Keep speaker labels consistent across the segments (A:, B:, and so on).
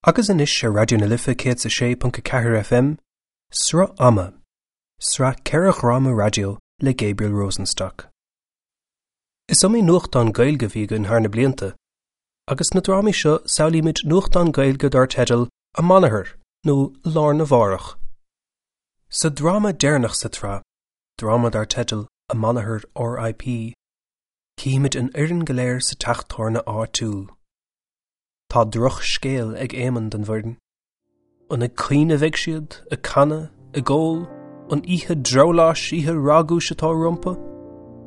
A: Agus anois ar Raidió na Life 106.4 FM, Sruth Ama, sraith 4 dhráma raidió le Gabriel Rosenstock. Is iomaí nuachtán Gaeilge a bhí againn thar na blianta, agus sna drámaí seo samhlaímid nuachtán Gaeilge dar teideal Amanathar nó Lá Arna Mhárach. Sa dráma deireanach sa tsraith, dráma dar teideal Amanathar R.I.P. cífimid an fhoireann go léir sa teach tábhairne áitiúil. Tá drochscéal ag Éamonn don bhfoireann. An ag caoineadh a bheidh siad, ag canadh, ag ól, an oíche drabhláis, oíche ragúis atá rompu?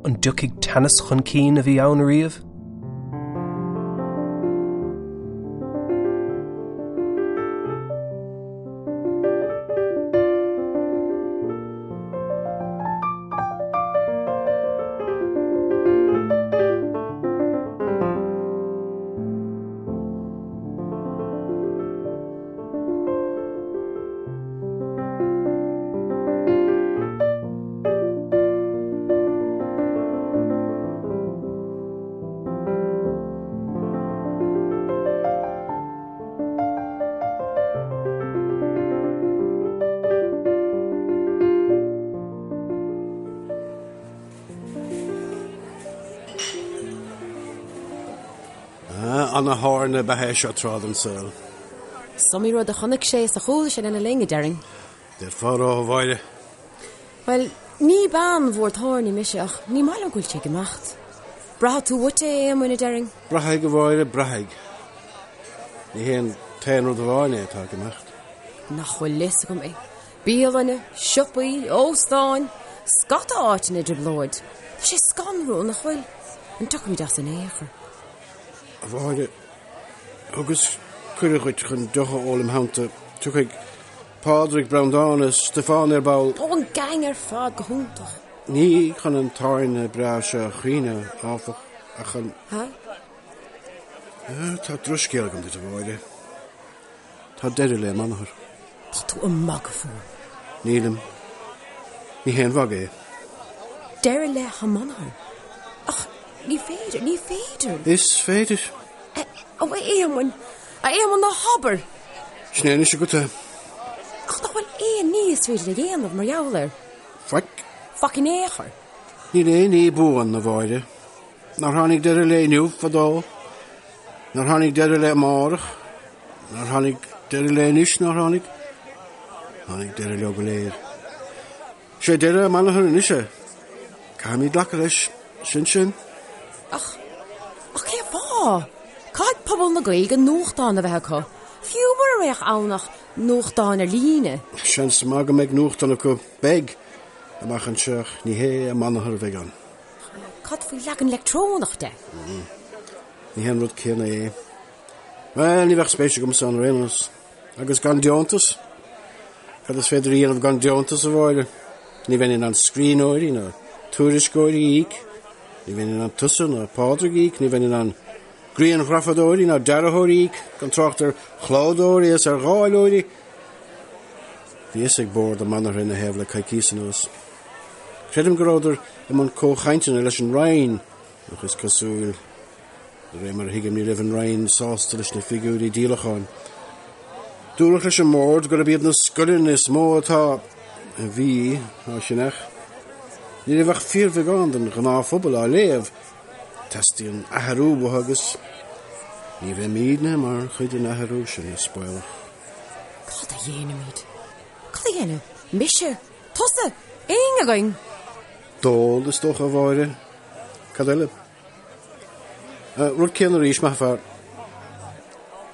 A: An dtiocfaidh teannas chun cinn a bhí ann ariamh?
B: Ana-thábhairne ab ea é seo tráth den saol.
C: Is iomaí rud a chonaic sé is a chuala sé lena linn, a déarfainn.
B: D'fhéadfá a rá, a Mháire.
C: Bhuel, ní bean mhór tábhairne mise ach ní maith liom go bhfuil sé ag imeacht. Braithfidh tú uait é, a Éamoinn, a déarfainn.
B: Braithfidh, a Mháire, braithfidh. Ní hé an t-aon rud amháin é atá ag imeacht.
C: Nach bhfuil fhios agam é. Bialanna, siopaí, óstáin, scata áiteanna i dtrioblóid. Tá sé scanrúil, nach bhfuil? An dtiocfaimid as in aon chor?
B: A Mháire, thugas cuireadh dhuit chun deoch a ól im theannta. Tiocfaidh Pádraig, Breandán is Stiofán ar ball.
C: Ó, an gang ar fad, go hiontach.
B: Ní chun an tábhairne breá seo a chaoineadh, áfach, ach chun.
C: Ha?
B: Tá drochscéal agam duit, a Mháire. Tá deireadh le Amanathar.
C: Tá tú ag magadh fúm.
B: Nílim. Ní haon mhagadh é.
C: Deireadh le hAmanathar? Ach ní féidir, ní féidir.
B: Is féidir.
C: Ó, a Éamoinn, a Éamoinn, ná habair!
B: Sin é anois agat é.
C: Ach nach bhfuil aon ní is féidir a dhéanamh mar gheall air?
B: Faic.
C: Faic in aon chor.
B: Níl aon ní buan, a Mháire. Nár tháinig deireadh le inniu fadó? Nár tháinig deireadh le amárach? Nár tháinig deireadh le anois? Nár tháinig? Tháinig deireadh leo go léir. Is é deireadh Amanathar anois é. Caithfimid glacadh leis. Sin sin.
C: Ach, ach cén fáth? Caithfidh pobal na Gaeilge nuachtán a bheith acu, fiú mura mbeadh ann ach nuachtán ar líne.
B: Seans maith go mbeidh nuachtán acu. Beidh! Amach anseo ach ní hé Amanathar a bheidh ann.
C: Cad faoi leagan leictreonach de?
B: Ní hé an rud céanna é. Bhuel, ní bheadh spéis agamsa ann ar aon nós. Agus gan deontas? Cad is féidir a dhéanamh gan deontas, a Mháire? Ní bheinn in ann scríbhneoirí ná tuairisceoirí a íoc. Ní bheinn in ann tusa ná Pádraig a íoc. Ní bheinn in ann grianghrafadóirí ná dearthóirí a íoc, gan trácht ar chlódóirí is ar dháileoirí. Bhí fhios ag bord Amanathar ina thaobh le coicíos anuas. Creidim go rabhadar i mbun comhchainteanna leis an Roinn, ach is cosúil, de réir mar a thuigim, ní raibh an Roinn sásta leis na figiúirí díolacháin. Dúradh leis an mbord gurb iad na scoileanna is mó atá, a bhí, á cheannach. Ní raibh ach fíorbheagán den ghnáthphobal á léamh. Teastaíonn athrú uathu agus ní bheimidne mar chuid den athrú sin, is baolach.
C: Cad a dhéanfaimid? Cad a dhéanfaidh mise? Tusa! Éinne againn!
B: Dól, is dócha, a Mháire. Cad eile? Rud céanna arís, maith an fear.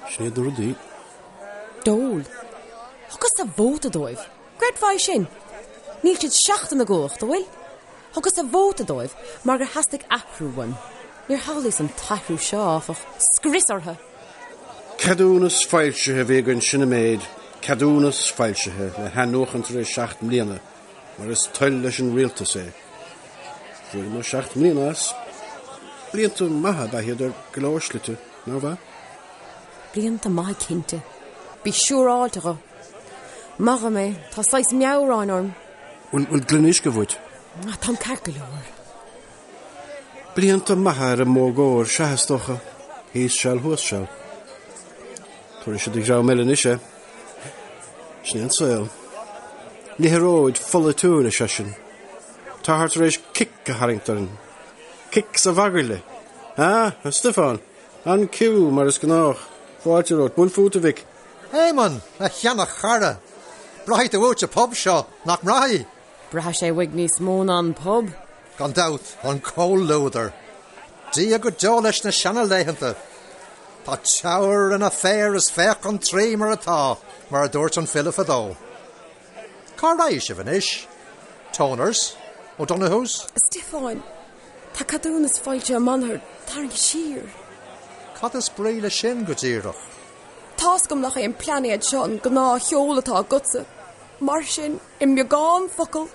B: Sin iad na rudaí.
C: Dól. Thugas-sa vóta dóibh. Gcreidfeá é sin? Níl siad seachtain i gcumhacht, an bhfuil? Thugas-sa vóta dóibh mar gur theastaigh athrú uaim. Níor shamhlaíos an t-athrú seo, áfach. Scrios orthu!
B: Ceadúnas foilsithe a bhí againn, sin an méid, ceadúnas foilsithe le hathnuachan tar éis 7 mbliana, mar is toil leis an rialtas é. Fuaireamar 7 mbliana as. Blianta maithe ab ea iad ar go leor slite, nárbh ea?
C: Blianta maithe cinnte. Bí siúráilte dho. Maith dhom é, tá saghas meabhráin orm.
B: Bhfuil gloine uisce uait?
C: Táim ceart go leor.
B: Blianta maithe ar an modh cóir, sea, is dócha. Thíos seal, thuas seal. Tabharfaidh sé do dhream eile anois é. Sin é an saol. Liathróid pholaitiúil, ar seisean. Táthar tar éis cic a tharraingt orainn. Cic sa mhagairle. Ah, a Stiofáin, an ciú, mar is gnách. Fáilte romhat. Buail fút, a mhic.
D: Éamonn, a sheana-chara! Braithfidh tú uait an pub seo, nach mbraithfidh?
C: Braithfidh sé uaidh níos mó ná an pub.
D: Gan dabht, an comhluadar. Dia go deo leis na seana-laethanta. Tá Teamhair ina féar is féach an Traí mar atá, mar a dúirt an file fadó. Cá raghaidh sibh anois? Toners? O'Donoghue's?
C: A Stiofáin, tá ceadúnas foilsithe Amanathar tarraingthe siar.
D: Cad is brí leis sin go díreach?
C: Tá's agam nach é an plainéad seo an gnáthsheoladh atá agatsa. Mar sin, i mbeagán focal,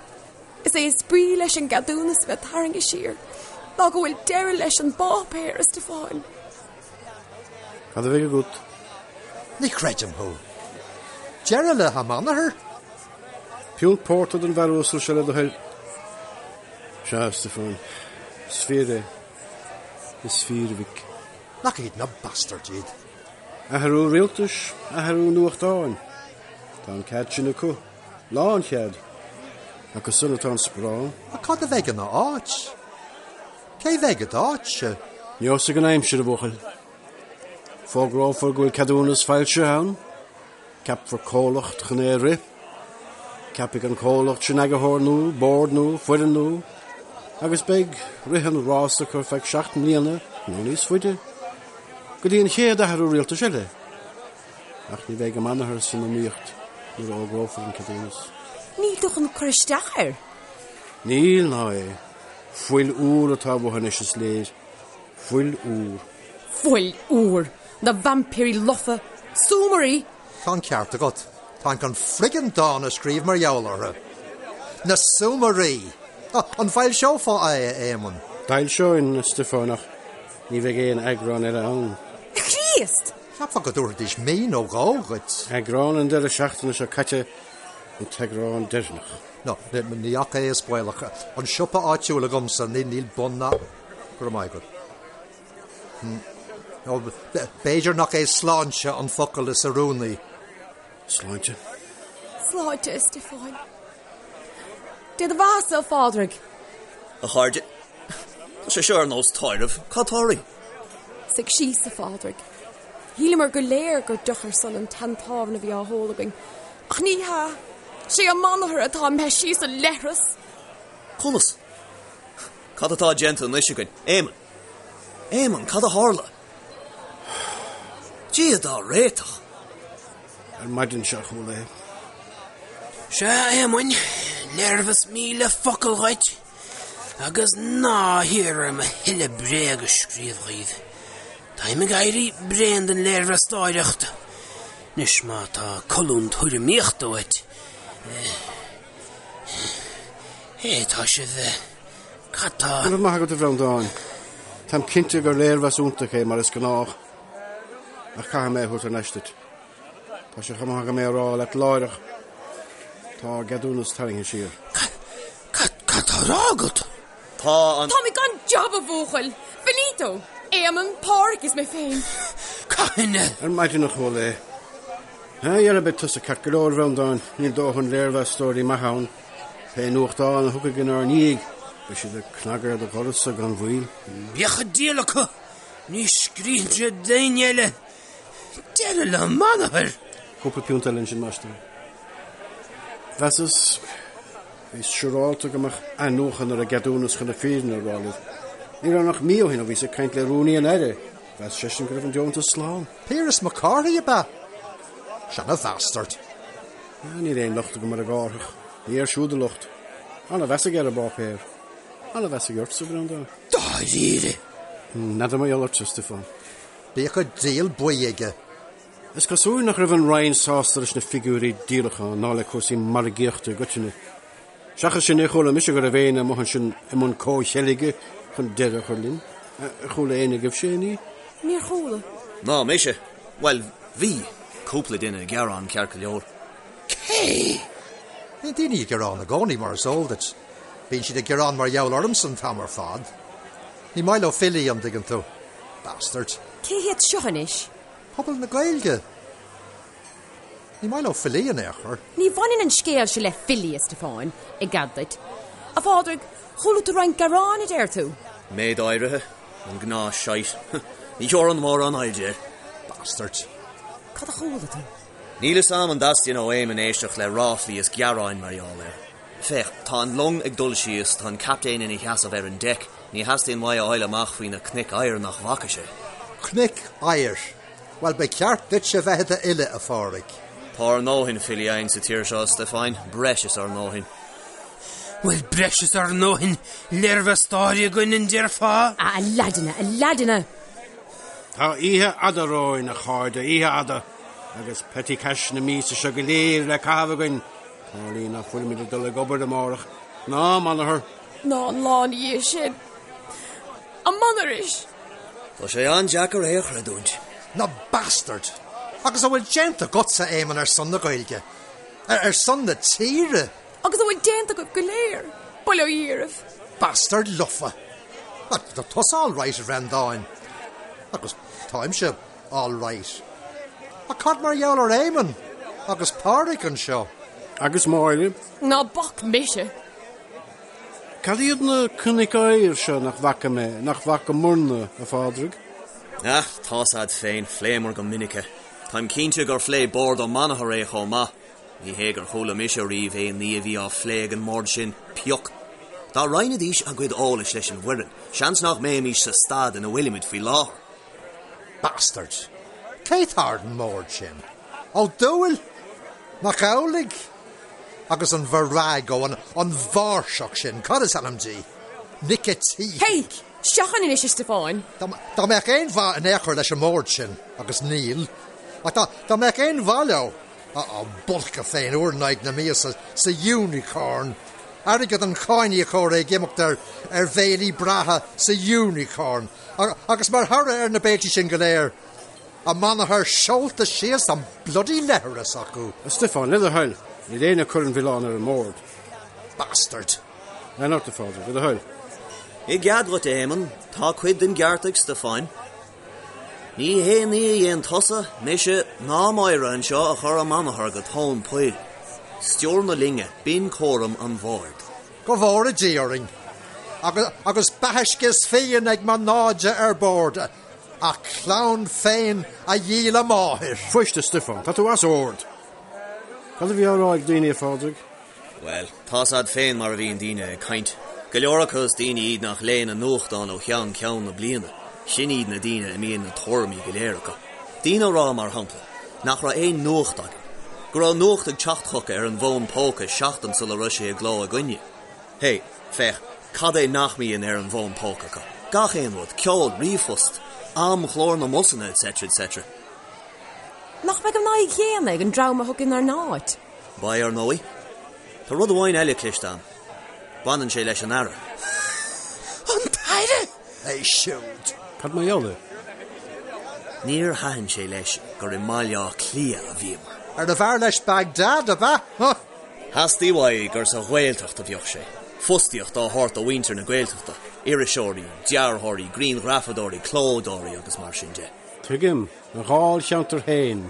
C: is é is brí leis an gceadúnas a bheith tarraingthe siar ná go bhfuil deireadh leis an bpáipéar, a Stiofáin.
B: Cad a bheidh agat?
D: Ní chreidim thú. Deireadh le hAmanathar?
B: Piúnt pórtair don bhfear uasal seo le do thoil. Sea, a Stiofáin, is fíor é. Is fíor, a mhic.
D: Nach iad na bastards iad.
B: Athrú rialtais, athrú nuachtáin. Tá an cead sin acu. Lánchead. Acu san atá an sparán.
D: Ach cad a bheidh ina áit? Cé bheidh i d'áit-se?
B: Neosfaidh an aimsir, a bhuachaill. Fógrófar go bhfuil ceadúnas foilsithe ann. Ceapfar comhlacht chun é a rith. Ceapfaidh an comhlacht sin eagarthóir nua, bord nua, foireann nua, agus beidh rith an rása acu ar feadh 7 mbliana nó níos faide, go dtí an chéad athrú rialtais eile. Ach ní bheidh Amanathar san iomaíocht nuair a fhógrófar an ceadúnas.
C: Níl tú chun cur isteach air?
B: Níl, ná é. Fuil úr atá uathu anois, is léir. Fuil úr.
C: Fuil úr! Na vaimpírí lofa! Súmairí!
D: Tá an ceart agat. Táim chun friggin dán a scríobh mar gheall orthu. Na súmairí! An bhfoilseofá é, a Éamoinn?
B: D'fhoilseoinn, a Stiofáin, ach ní bheidh aon eagrán eile ann.
C: A Chríost!
D: Cheapfá go dtabharfaidís mí nó dhó dhuit.
B: Eagrán an deireadh seachtaine seo caite an t-eagrán deireanach.
D: No, ní ach é is baolach. An siopa áitiúil agamsa, níl bun ná. Go raibh maith agat. B'fhéidir nach é sláinte an focal is oiriúnaí.
B: Sláinte.
C: Sláinte, a Stiofáin. Dé do bheatha-sa, a Phádraig.
E: A chairde, tá sé seo ar nós tórraimh. Cad tá oraibh?
C: Suigh síos, a Phádraig. Shíleamar go léir gur deoch ar son an tseantábhairne a bhí á hól againn. Ach ní hea. Sé Amanathar atá imithe síos an leithreas.
E: Conas? Cad atá déanta anois againn? Éamonn! Éamonn, cad a tharla? Dia dár réiteach!
B: Ar maidin seo a chuala é.
F: Sea, a Éamoinn, léirmheas 1000 focal dhuit, agus ná hiarr orm a thuilleadh bréag a scríobh dhaoibh. Táim ag éirí bréan den léirmheastóireacht. Anois má tá colún tuairimíochta uait, Hé, tá sibh, cad tá?
B: Go raibh maith agat, a Bhreandáin. Táim cinnte gur léirmheas iontach é, mar is gnách. Ach caithfidh mé é a thabhairt thar n-ais duit. Tá sé chomh maith agam é a rá leat láithreach. Tá ár gceadúnas tarraingthe siar.
F: Cad, cad tá á rá agat?
E: Tá an.
C: Táimid gan jab, a bhuachaill! Finito! Éamonn, Páraic is mé féin.
F: Cathain a.
B: Ar maidin a chuala é. Dhera, beidh tusa ceart go leor, a Bhreandáin, níl dóthain léirmheastóirí maithe ann. Pé nuachtán a thiocfaidh inár ndiaidh, beidh siad ag cnagadh ar do dhoras-sa gan mhoill.
F: Bíodh an diabhal acu! Ní scríobhann siad d'éinne eile. Deireadh le Amanathar!
B: Cúpla piúnt eile ansin, máistir. Mheasas, bhíos siúrálta go mbeadh athnuachan ar an gceadúnas chun na fírinne a rá libh. Ní raibh ach mí ó shin ó bhíos ag caint le rúnaí an Aire. Mheas seisean go raibh an deontas slán.
D: Piaras Mac Cárthaigh ab ea? Seana-bhastard.
B: Níl aon locht agam ar an gCárthach. Ní air siúd an locht. Ana-mheas aige ar an bpáipéar. Ana-mheas aige ortsa, a Bhreandáin.
F: Dáiríre?
B: N'fheadar mar gheall ortsa, a Stiofáin.
D: Bíodh an diabhal buí aige.
B: Is cosúil nach raibh an Roinn sásta leis na figiúirí díolacháin ná le cúrsaí margaíochta i gcoitinne. Seachas sin, níor chuala mise go raibh éinne amuigh ansin i mbun comhcheilge chun deireadh a chur linn. Ar chuala éinne agaibhse aon ní?
C: Níor chuala.
E: Ná mise. Bhuel, bhí cúpla duine ag gearán ceart go leor.
F: Cé?
D: Bíonn daoine ag gearán i gcónaí, mar is eol duit. Bíonn siad ag gearán mar gheall ormsa an t-am ar fad. Ní maith leo filí, an dtuigeann tú. Bastards.
C: Cé hiad seo anois?
D: Pobal na Gaeilge. Ní maith leo filí in aon chor.
C: Ní bhaineann an scéal seo le filí, a Stiofáin, i gcead duit. A Phádraig, chuala tú roinnt gearán, a deir tú?
E: Méid áirithe. An gnáth-shite. Ní thabharfainn mórán airde air.
D: Bastards.
C: Cad a chuala tú?
E: Níl fhios a'm an dteastaíonn ó Éamonn éisteacht le ráflaí is gearáin mar gheall air. Féach, tá an long ag dul síos, tá an captaen ina sheasamh ar an deic, ní theastaíonn uaidh a fháil amach faoi na cnoic oighir nach bhfaca sé.
D: Cnoic oighir? Bhuel, ba cheart duitse bheith i d'fhile, a Phádraig.
E: Tá ár ndóthain filí againn sa tír seo, a Stiofáin, breis is ár ndóthain.
F: Bhuel, breis is ár ndóthain léirmheastóirí againn, an déarfá?
C: A leaideanna, a leaideanna!
B: Tá oíche fhada romhainn, a chairde, oíche fhada, agus petty cash na míosa seo go léir le caitheamh againn. Tarlaíonn nach bhfuilimid ag dul ag obair amárach, ná amanathar.
C: Ná an lá ina dhiaidh sin. Amanairis!
E: Tá sé an-deacair é a chreidiúint.
D: Na bastards! Agus a bhfuil déanta agatsa, Éamonn, ar son na Gaeilge? Ar son na tíre?
C: Agus a bhfuil déanta agaibh go léir, bail ó Dhia oraibh.
D: Bastard lofa! Tá tusa all right, a Bhreandáin. Agus táimse all right. Ach cad mar gheall ar Éamonn agus Pádraig anseo?
B: Agus Máire?
C: Ná bac mise!
B: Cad iad na cnoic oighir seo nach bhfaca mé, nach bhfacamarna, a Phádraig?
E: Ah, tá's a'd féin, phléamar go minic é. Táim cinnte gur phléigh Bord Ó Manachair é chomh maith. Ní hé gur chuala mise riamh aon ní a bhí á phlé ag an mbord sin, pioc. Dá roinnfidís a gcuid eolais leis an bhfoireann, seans nach mbeimis sa staid ina bhfuilimid faoi láthair.
D: Bastards! Cé tá ar an mbord sin? Ó Dúill? Mac Amhlaigh? Agus an virago, an an mháirseach sin, cad is ainm di? Nic a tSíthigh.
C: Hey! Seachain anois, a Stiofáin!
D: Dá mbeadh aon mhaith in aon chor leis an mbord sin, agus níl, ach dá mbeadh aon mhaith leo, Á bpolcadh féin uair in aghaidh na míosa sa Unicorn, airgead an cháiníocóra ag imeacht ar ar bhéilí breátha sa Unicorn, agus mar thoradh ar na béiltí sin go léir, a manathar seolta síos an bloody leithreas acu.
B: A Stiofáin, le do thoil, níl éinne ag cur an mhilleáin ar an mbord.
D: Bastard!
B: Lean ort, a Phádraig, le do thoil.
E: I gcead dhuit, a Éamonn, tá cuid den gceart ag Stiofáin. Ní haon ní a dhein tusa, mise, ná Máire anseo a chuir Ó Manachair go tóin poill. Stiúir na loinge, b'in cúram an bhoird.
D: Go bhfóire Dia orainn! Agus, agus beatha is fíon ag mo náide ar bord, a clann féin a dhíol a máthair!
B: Fuist, a Stiofáin, tá tú as ord! Cad a bhí á rá ag daoine, a Phádraig?
E: Bhuel, tá's a'd féin mar a bhíonn daoine ag caint. Go leor acu is daoine iad nach léann an nuachtán ó cheann ceann na bliana. Sin iad na daoine a mbíonn na tuairimí go léir acu. Daoine a rá, mar shampla, nach raibh aon nuacht againn. Go raibh nuacht ag teacht chucu ar an bhfón póca seachtain sula raibh sé i gcló againne. Hé, féach, cad é nach mbíonn ar an bhfón póca acu? Gach aon rud, ceol, ríomhphost, amchlár na mbusanna, etc. etc.
C: Nach mbeidh an fhadhb chéanna ag an dream a thiocfaidh inár n-áit?
E: Beidh, ar ndóigh. Tá rud amháin eile cloiste a'm. Baineann sé leis an Aire.
F: An tAire!
D: É siúd.
B: Cad mar gheall air?
E: Níor thaitin sé leis gur i mBaile Átha Cliath a bhíomar.
D: Arbh fhearr leis Baghdad, ab ea? Huh!
E: Theastaigh uaidh gur sa Ghaeltacht a bheadh sé. Fostaíocht á thabhairt do mhuintir na Gaeltachta, iriseoirí, dearthóirí, grianghrafadóirí, clódóirí agus mar sin de.
B: Tuigim. A dháilcheantar féin.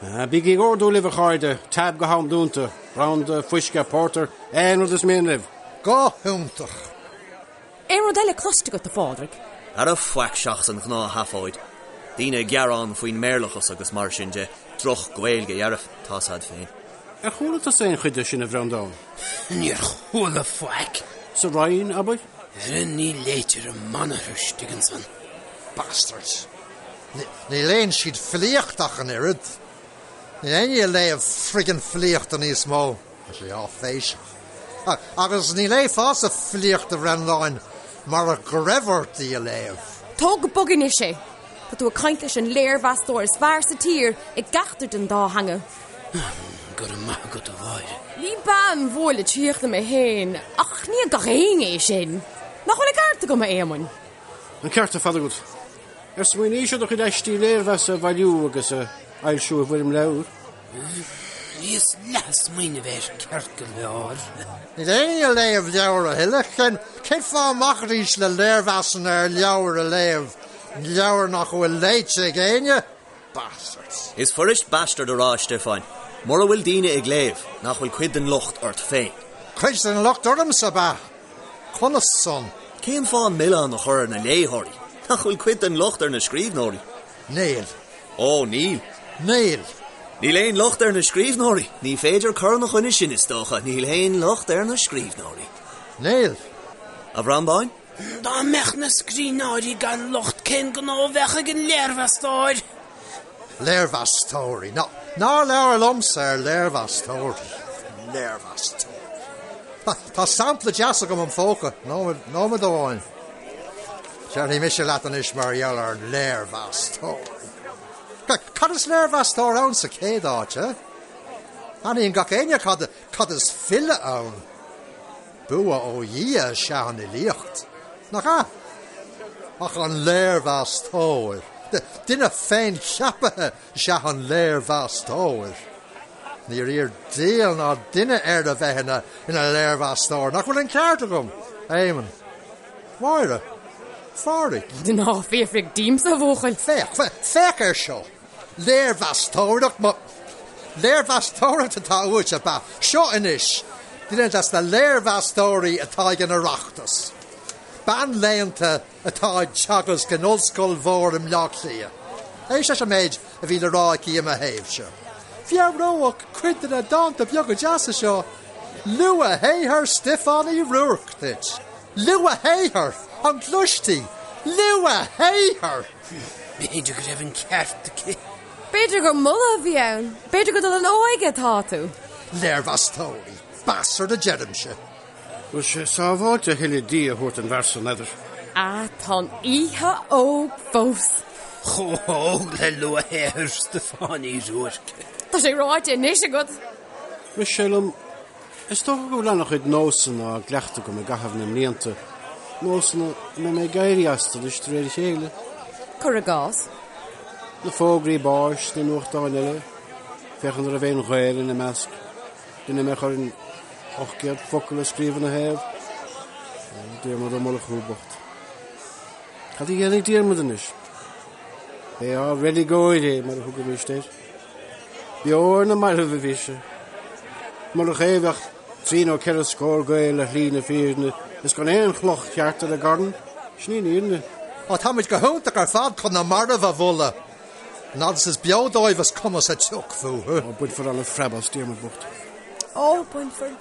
B: Bígí ag ordú libh, a chairde, tab go ham dúnta, branda, fuisce, pórtar, aon rud is mian libh.
D: Go hiontach!
C: Aon rud eile cloiste agat, a Phádraig?
E: Ara faic seachas an ghnáthsheafóid. Daoine ag gearán faoin mBéarlachas agus mar sin de, droch-Ghaeilge dhearfa, tá's a'd féin.
B: Ar chuala tusa aon chuid de sin, a Bhreandáin?
F: Níor chuala faic.
B: Sa Roinn, abair?
F: Ara ní léitear i manathar istigh ansan.
D: Bastards! Ní léann siad filíocht ach an oiread. Níl éinne ag léamh friggin filíochta níos mó. Tá sé áiféiseach. Agus ní léifeása filíocht a Bhreandáin murach go raibh ort í a léamh.
C: Tóg go bog anois é! Tá tú ag caint leis an léirmheastóir is fearr sa tír i gceachtar den dá theanga.
F: Go raibh maith agat, a Mháire.
C: Ní bean mhór litríochta mé féin, ach ní ag gach éinne é sin. Nach bhfuil an ceart agam, a Éamoinn?
B: An ceart ar fad agat. Ar smaoiníos ar do chuid aistí léirmheasa a bhailiú agus a fhoilsiú i bhfoirm leabhair?
F: Bhíos leath ag smaoineamh air, ceart go leor.
D: Níl éinne ag léamh leabhar a thuilleadh. Cén cén fáth a mbacaidís le léirmheasanna ar leabhair a léamh, leabhair nach bhfuil léite ag éinne? Bastards.
E: Is fuirist bastard a rá, a Stiofáin, mura bhfuil daoine ag léamh, nach bhfuil cuid den locht ort féin.
D: Cuid den locht ormsa, ab ea? Conas san?
E: Cén fáth an milleán a chur ar na léitheoirí? Nach bhfuil cuid den locht ar na scríbhneoirí?
D: Níl.
E: Ó, níl.
D: Níl.
E: Níl aon locht ar na scríbhneoirí. Ní féidir cur ina choinne sin, is dócha. Níl aon locht ar na scríbhneoirí.
D: Níl.
E: A Bhreandáin?
F: Dá mbeadh na scríbhneoirí gan locht cén gnó a bheadh ag an léirmheastóir?
D: Léirmheastóirí. Ná, ná labhair liomsa ar léirmheastóirí. Léirmheastóirí. Tá, tá sampla deas agam im phóca. Nóiméad, nóiméad amháin. Déarfaidh mise leat anois mar gheall ar léirmheastóirí. Cad is léirmheastóir ann sa chéad áit, eh? Aithníonn gach éinne cad, cad is file ann. Bua ó Dhia is ea an fhilíocht, nach ea? Ach an léirmheastóir, duine féincheaptha is ea an léirmheastóir. Níor iarr diabhal ná duine air a bheith ina ina léirmheastóir, nach bhfuil an ceart agam, Éamonn? Máire? Phádraig?
C: Ná fiafraigh díomsa, a bhuachaill.
D: Féach, féach air seo. Léirmheastóireacht, mo. Léirmheastóireacht atá uait, ab ea? Seo anois duine des na léirmheastóirí atá ag an Oireachtas. Bean léannta atá ag teagasc in ollscoil mhór i mBleá Cliath. Éist leis an méid a bhí le rá aici i mo thaobhse. Mheabhródh cuid de na dánta beaga deasa seo luathshaothar Stiofáin Uí Ruairc duit. Luathshaothar! An gclois tú? Luathshaothar!
F: B'fhéidir go raibh an ceart aici.
C: B'fhéidir gur moladh a bhí ann. B'fhéidir gur dul in óige atá tú.
D: Léirmheastóirí, bastard a deirimse.
B: Bhfuil sé sábháilte a thuilleadh dí a thabhairt don bhfear san, n'fheadar?
C: Ah, tá an oíche óg fós.
F: Chomh hóg le luathshaothar Stiofáin Uí Ruairc.
C: Tá sé ráite anois agat.
B: Rith sé liom Is dócha go bhfuil an-chuid nósanna á gcleachtadh agam i gcaitheamh na mblianta, nósanna a mbeidh mé ag éirí astu anois de réir a chéile.
C: Cuir i gcás.
B: Na fógraí báis sna nuachtáin eile, féachaint an raibh aon ghaol ina measc, duine a mbeadh orainn 800 focal a scríobh ina thaobh. Ó, Diarmuid Ó Murchú bocht. Cad a dhéanfaidh Diarmuid anois? B'é ár reiligeoir é, mar a thugaimíst air. Beo ar na mairbh a bhí sé. Murach é bheadh trí nó ceithre scór Gael ar shlí na fírinne is gan aon chloch cheart ar a gcarn. Sin í an fhírinne.
D: Á, táimid go hiontach ar fad chun na mairbh a mholadh. An fhad is is beo dóibh is cuma sa tsioc fúthu.
B: Ó, bainfear an-phreab as Diarmuid bocht.
C: Ó, bainfear.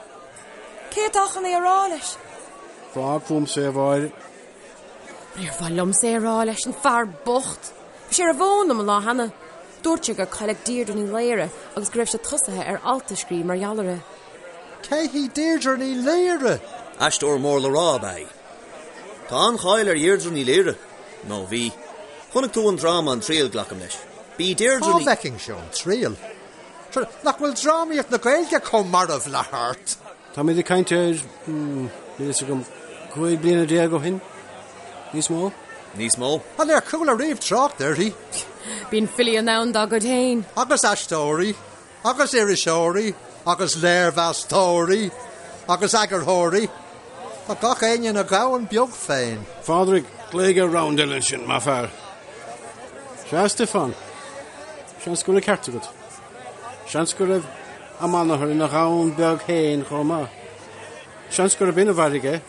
C: Cé atá chun é a rá leis?
B: Fág fúmsa é, a Mháire.
C: Níor mhaith liomsa é a rá leis, an fear bocht. Bhí sé ar an bhfón liom an lá cheana. Dúirt sé gur cailleadh Deirdre Ní Laoire agus go raibh sé tosaithe ar alt a scríobh mar gheall uirthi.
D: Cé hí Deirdre Ní Laoire?
E: Aisteoir mór le rá ab ea í. Tá an-cháil ar Dheirdre Ní Laoire. Nó bhí. Chonaic tú an dráma An Triail, glacaim leis. B'í Deirdre
D: Cá
E: Ní.
D: bhfeicinnse An Triail? Nach bhfuil drámaíocht na Gaeilge chomh marbh le hArt?
B: Táimid ag caint ar, níl a fhios agam, 15 bliana ó shin? Níos mó?
E: Níos mó?
D: An ar chuala riamh trácht uirthi?
C: Bíonn filí in ann dá gcuid féin.
D: Agus aisteoirí, agus iriseoirí, agus léirmheastóirí, agus eagarthóirí. Tá gach éinne ina dhomhan beag féin.
B: A Phádraig, glaoigh ar round eile ansin, maith fear. Sea, a Stiofáin. Seans go bhfuil an ceart agat. Seans go raibh Amanathar ina dhomhan beag féin chomh maith. Seans gurb in a mharaigh é.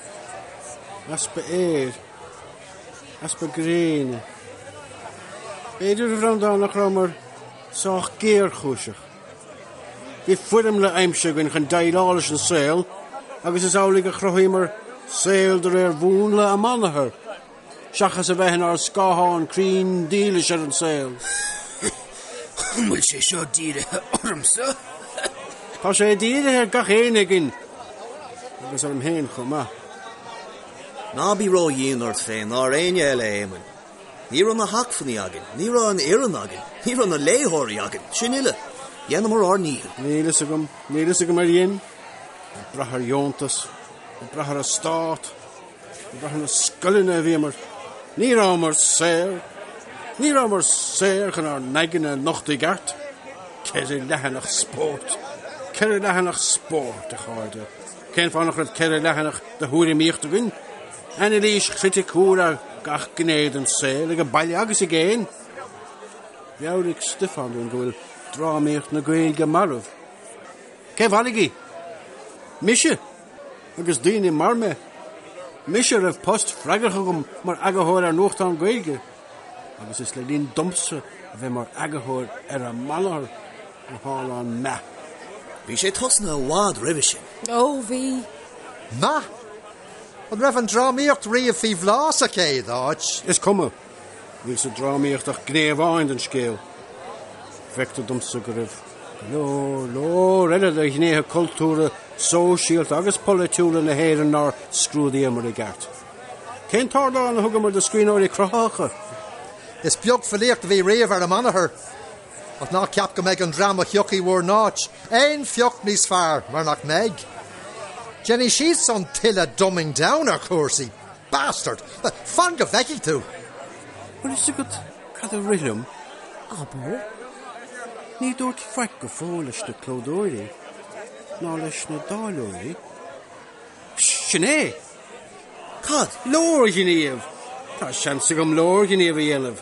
B: Easpa aeir. Easpa gréine. B'fhéidir, a Bhreandáin, nach rabhamar sách géarchúiseach. Bhí foirmle aimsithe againn chun déileáil leis an saol agus is amhlaidh a chruthaíomar saol de réir mhúnla Amanathar. seachas a bheith inár scáthán cruinn dílis ar an saol.
F: An bhfuil sé seo dírithe ormsa?
B: Tá sé dírithe ar gach éinne againn, agus orm féin chomh maith.
E: Ná bí ró-dhian ort féin ná ar éinne eile, a Éamoinn. Ní raibh na hacmhainní againn, ní raibh an fhoireann againn, ní raibh na léitheoirí againn, sin uile. Dheineamar ár ndícheall.
B: Níl fhios agam, níl fhios agam ar dhein. Ag brath ar dheontas, ag brath ar an stát. Ag brath ar na scoileanna a bhíomar. Ní rabhamar saor. Ní rabhamar saor chun ár n-aigne a nochtadh i gceart. Ceithre leathanach spóirt. Ceithre leathanach spóirt, a chairde. Cén fáth nach raibh ceithre leathanach de thuairimíocht againn? Anailís chriticiúil ar gach gné den saol, ag baile agus i gcéin. Mheabhraigh Stiofán dúinn go bhfuil drámaíocht na Gaeilge marbh. Cé mharaigh í? Mise! Agus daoine mar mé. Mise a raibh post freagrach agam mar eagarthóir ar nuachtán Gaeilge. Agus is le linn domsa a bheith mar eagarthóir ar Amanathar a tharla an meath.
E: Bhí sé tosnaithe i bhfad roimhe sin.
C: Ó, bhí.
D: Meath? An raibh an drámaíocht riamh faoi bhláth sa chéad áit?
B: Is cuma. Níl sa drámaíocht ach gné amháin den scéal. Feictear domsa go raibh go leor, leor eile de ghnéithe cultúrtha, sóisialta agus polaitiúla na hÉireann nár scrúdaíomar i gceart. Cén t-ardán a thugamar do scríbhneoirí cruthaitheacha?
D: Is beag filíocht a bhí riamh ar Amanathar. Ach ná ceap go mbeidh an dream a thiocfaidh bhur n-áit aon phioc níos fearr, mar nach mbeidh. Déanfaidh siadsan tuilleadh dumbing down ar chúrsaí. Bastard! Fan go bhfeicfidh tú!
B: Bhfuil fhios agat cad a rith liom?
C: Abair.
B: Ní dúrt faic go fóill leis na clódóirí, ná leis na dáileoirí. Sin é!
E: Cad?
B: Leorghníomh! Tá seans agam leorghníomh a dhéanamh.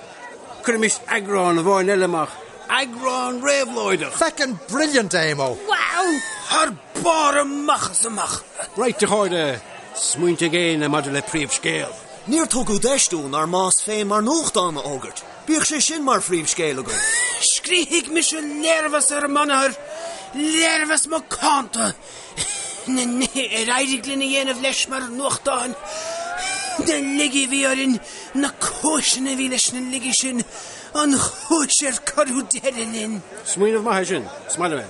B: Cuirimis eagrán amháin eile amach. Eagrán réabhlóideach!
D: Feckin' brilliant, Éamo!
F: Wow! Thar barr amach is amach!
B: Right, a chairde, smaointe ag éinne maidir le príomhscéal?
E: Níor tugadh deis dúinn ár mbás féin mar nuachtán a fhógairt. Bíodh sé sin mar phríomhscéal againn.
F: Scríobfaidh mise léirmheas ar Amanathar, léirmheas macánta! Na nithe ar éirigh linn a dhéanamh leis mar nuachtán, na laigí a bhí orainn, na cúiseanna a bhí leis na laigí sin, an chúis ar cuireadh deireadh linn.
B: Smaoineamh maith é sin. Is maith liom é.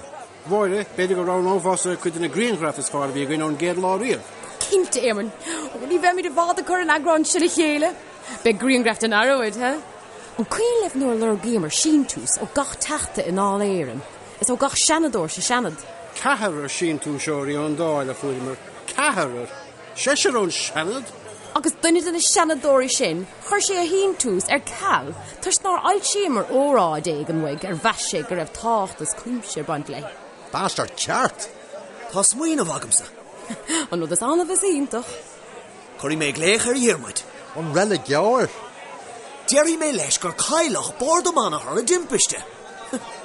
B: Mháire, b'fhéidir go roghnófása cuid de na grianghraif is fearr a bhí againn ón gcéad lá riamh.
C: Cinnte, Éamonn. Ó, ní bheimid i bhfad ag cur an eagráin sin le chéile. Beidh grianghraif den araid, ha? An cuimhin libh nuair a lorgaíomar síntiús ó gach teachta i nDáil Éireann? Is ó gach seanadóir sa Seanad.
B: Ceathrar síntiúsóirí ón Dáil a fuaireamar. Ceathrar! Seisear ón Seanad!
C: Agus duine de na seanadóirí sin, chuir sé a shíntiús ar ceal toisc nár fhoilsíomar óráid éigin uaidh ar mheas sé go raibh tábhacht as cuimse ag baint léi.
D: Bastard ceart!
E: Tá smaoineamh agamsa.
C: An rud is annamh is iontach.
E: Cuirfidh mé glaoch ar Dhiarmuid.
D: An reiligeoir?
E: Déarfaidh mé leis gur cailleadh bord Amanathar i dtimpiste.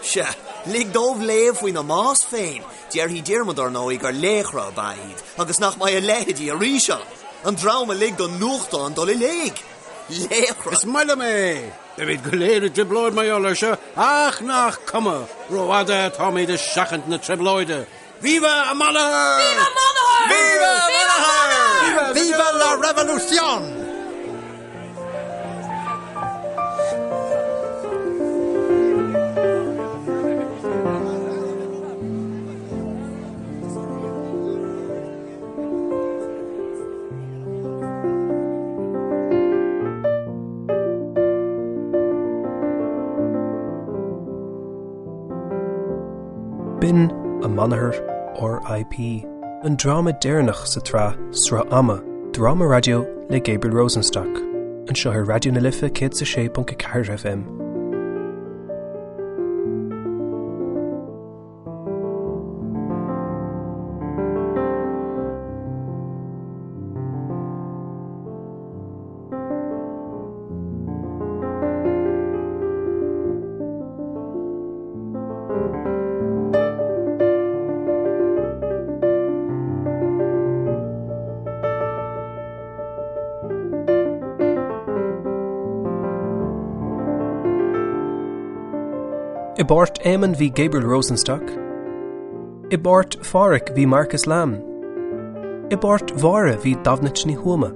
E: Sea, lig dóibh léamh faoina mbás féin. Déarfaidh Diarmuid, ar ndóigh, gur laochra ab ea iad agus nach mbeidh a leithéidí arís ann. An dream a lig don nuachtán dul i léig. Laochra!
B: Is maith liom é! Beimid go léir i dtrioblóid mar gheall air seo, ach nach cuma, rófhada atáimid ag seachaint na trioblóide. Viva Amanathar!
C: Viva Amanathar!
E: Viva Amanathar!
D: Viva la revolución!
A: B'in Amanathar R.I.P. an dráma deireanach sa tsraith Sruth Ama, dráma raidió le Gabriel Rosenstock, anseo ar Raidió na Life 106.4 FM. I bpáirt Éamonn bhí Gabriel Rosenstock. I bpáirt Phádhraic bhí Marcus Lamb. I bpáirt Mháire bhí Damhnait Ní Thuama.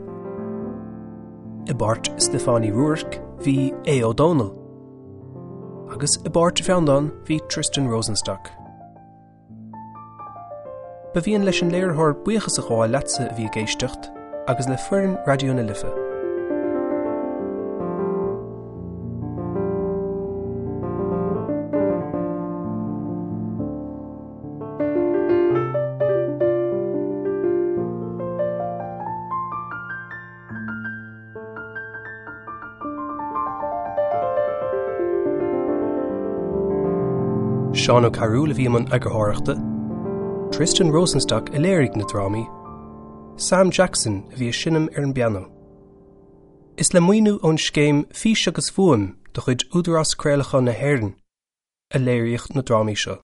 A: I bpáirt Stiofáin Uí Ruairc bhí Aodh Ó Dónaill. Agus i bpáirt Bhreandáin bhí Tristan Rosenstock. Ba mhian leis an léiritheoir buíochas a ghabháil leatsa a bhí ag éisteacht agus le foireann Raidió na Life. Seán Ó Cearúil a bhí i mbun eagarthóireachta, Tristan Rosenstock a léirigh na drámaí, Sam Jackson a bhí ag seinm ar an bpianó. Is le maoiniú ón scéim Fís agus Fuaim de chuid Údarás Craolacháin na hÉireann a léiríodh na drámaí seo.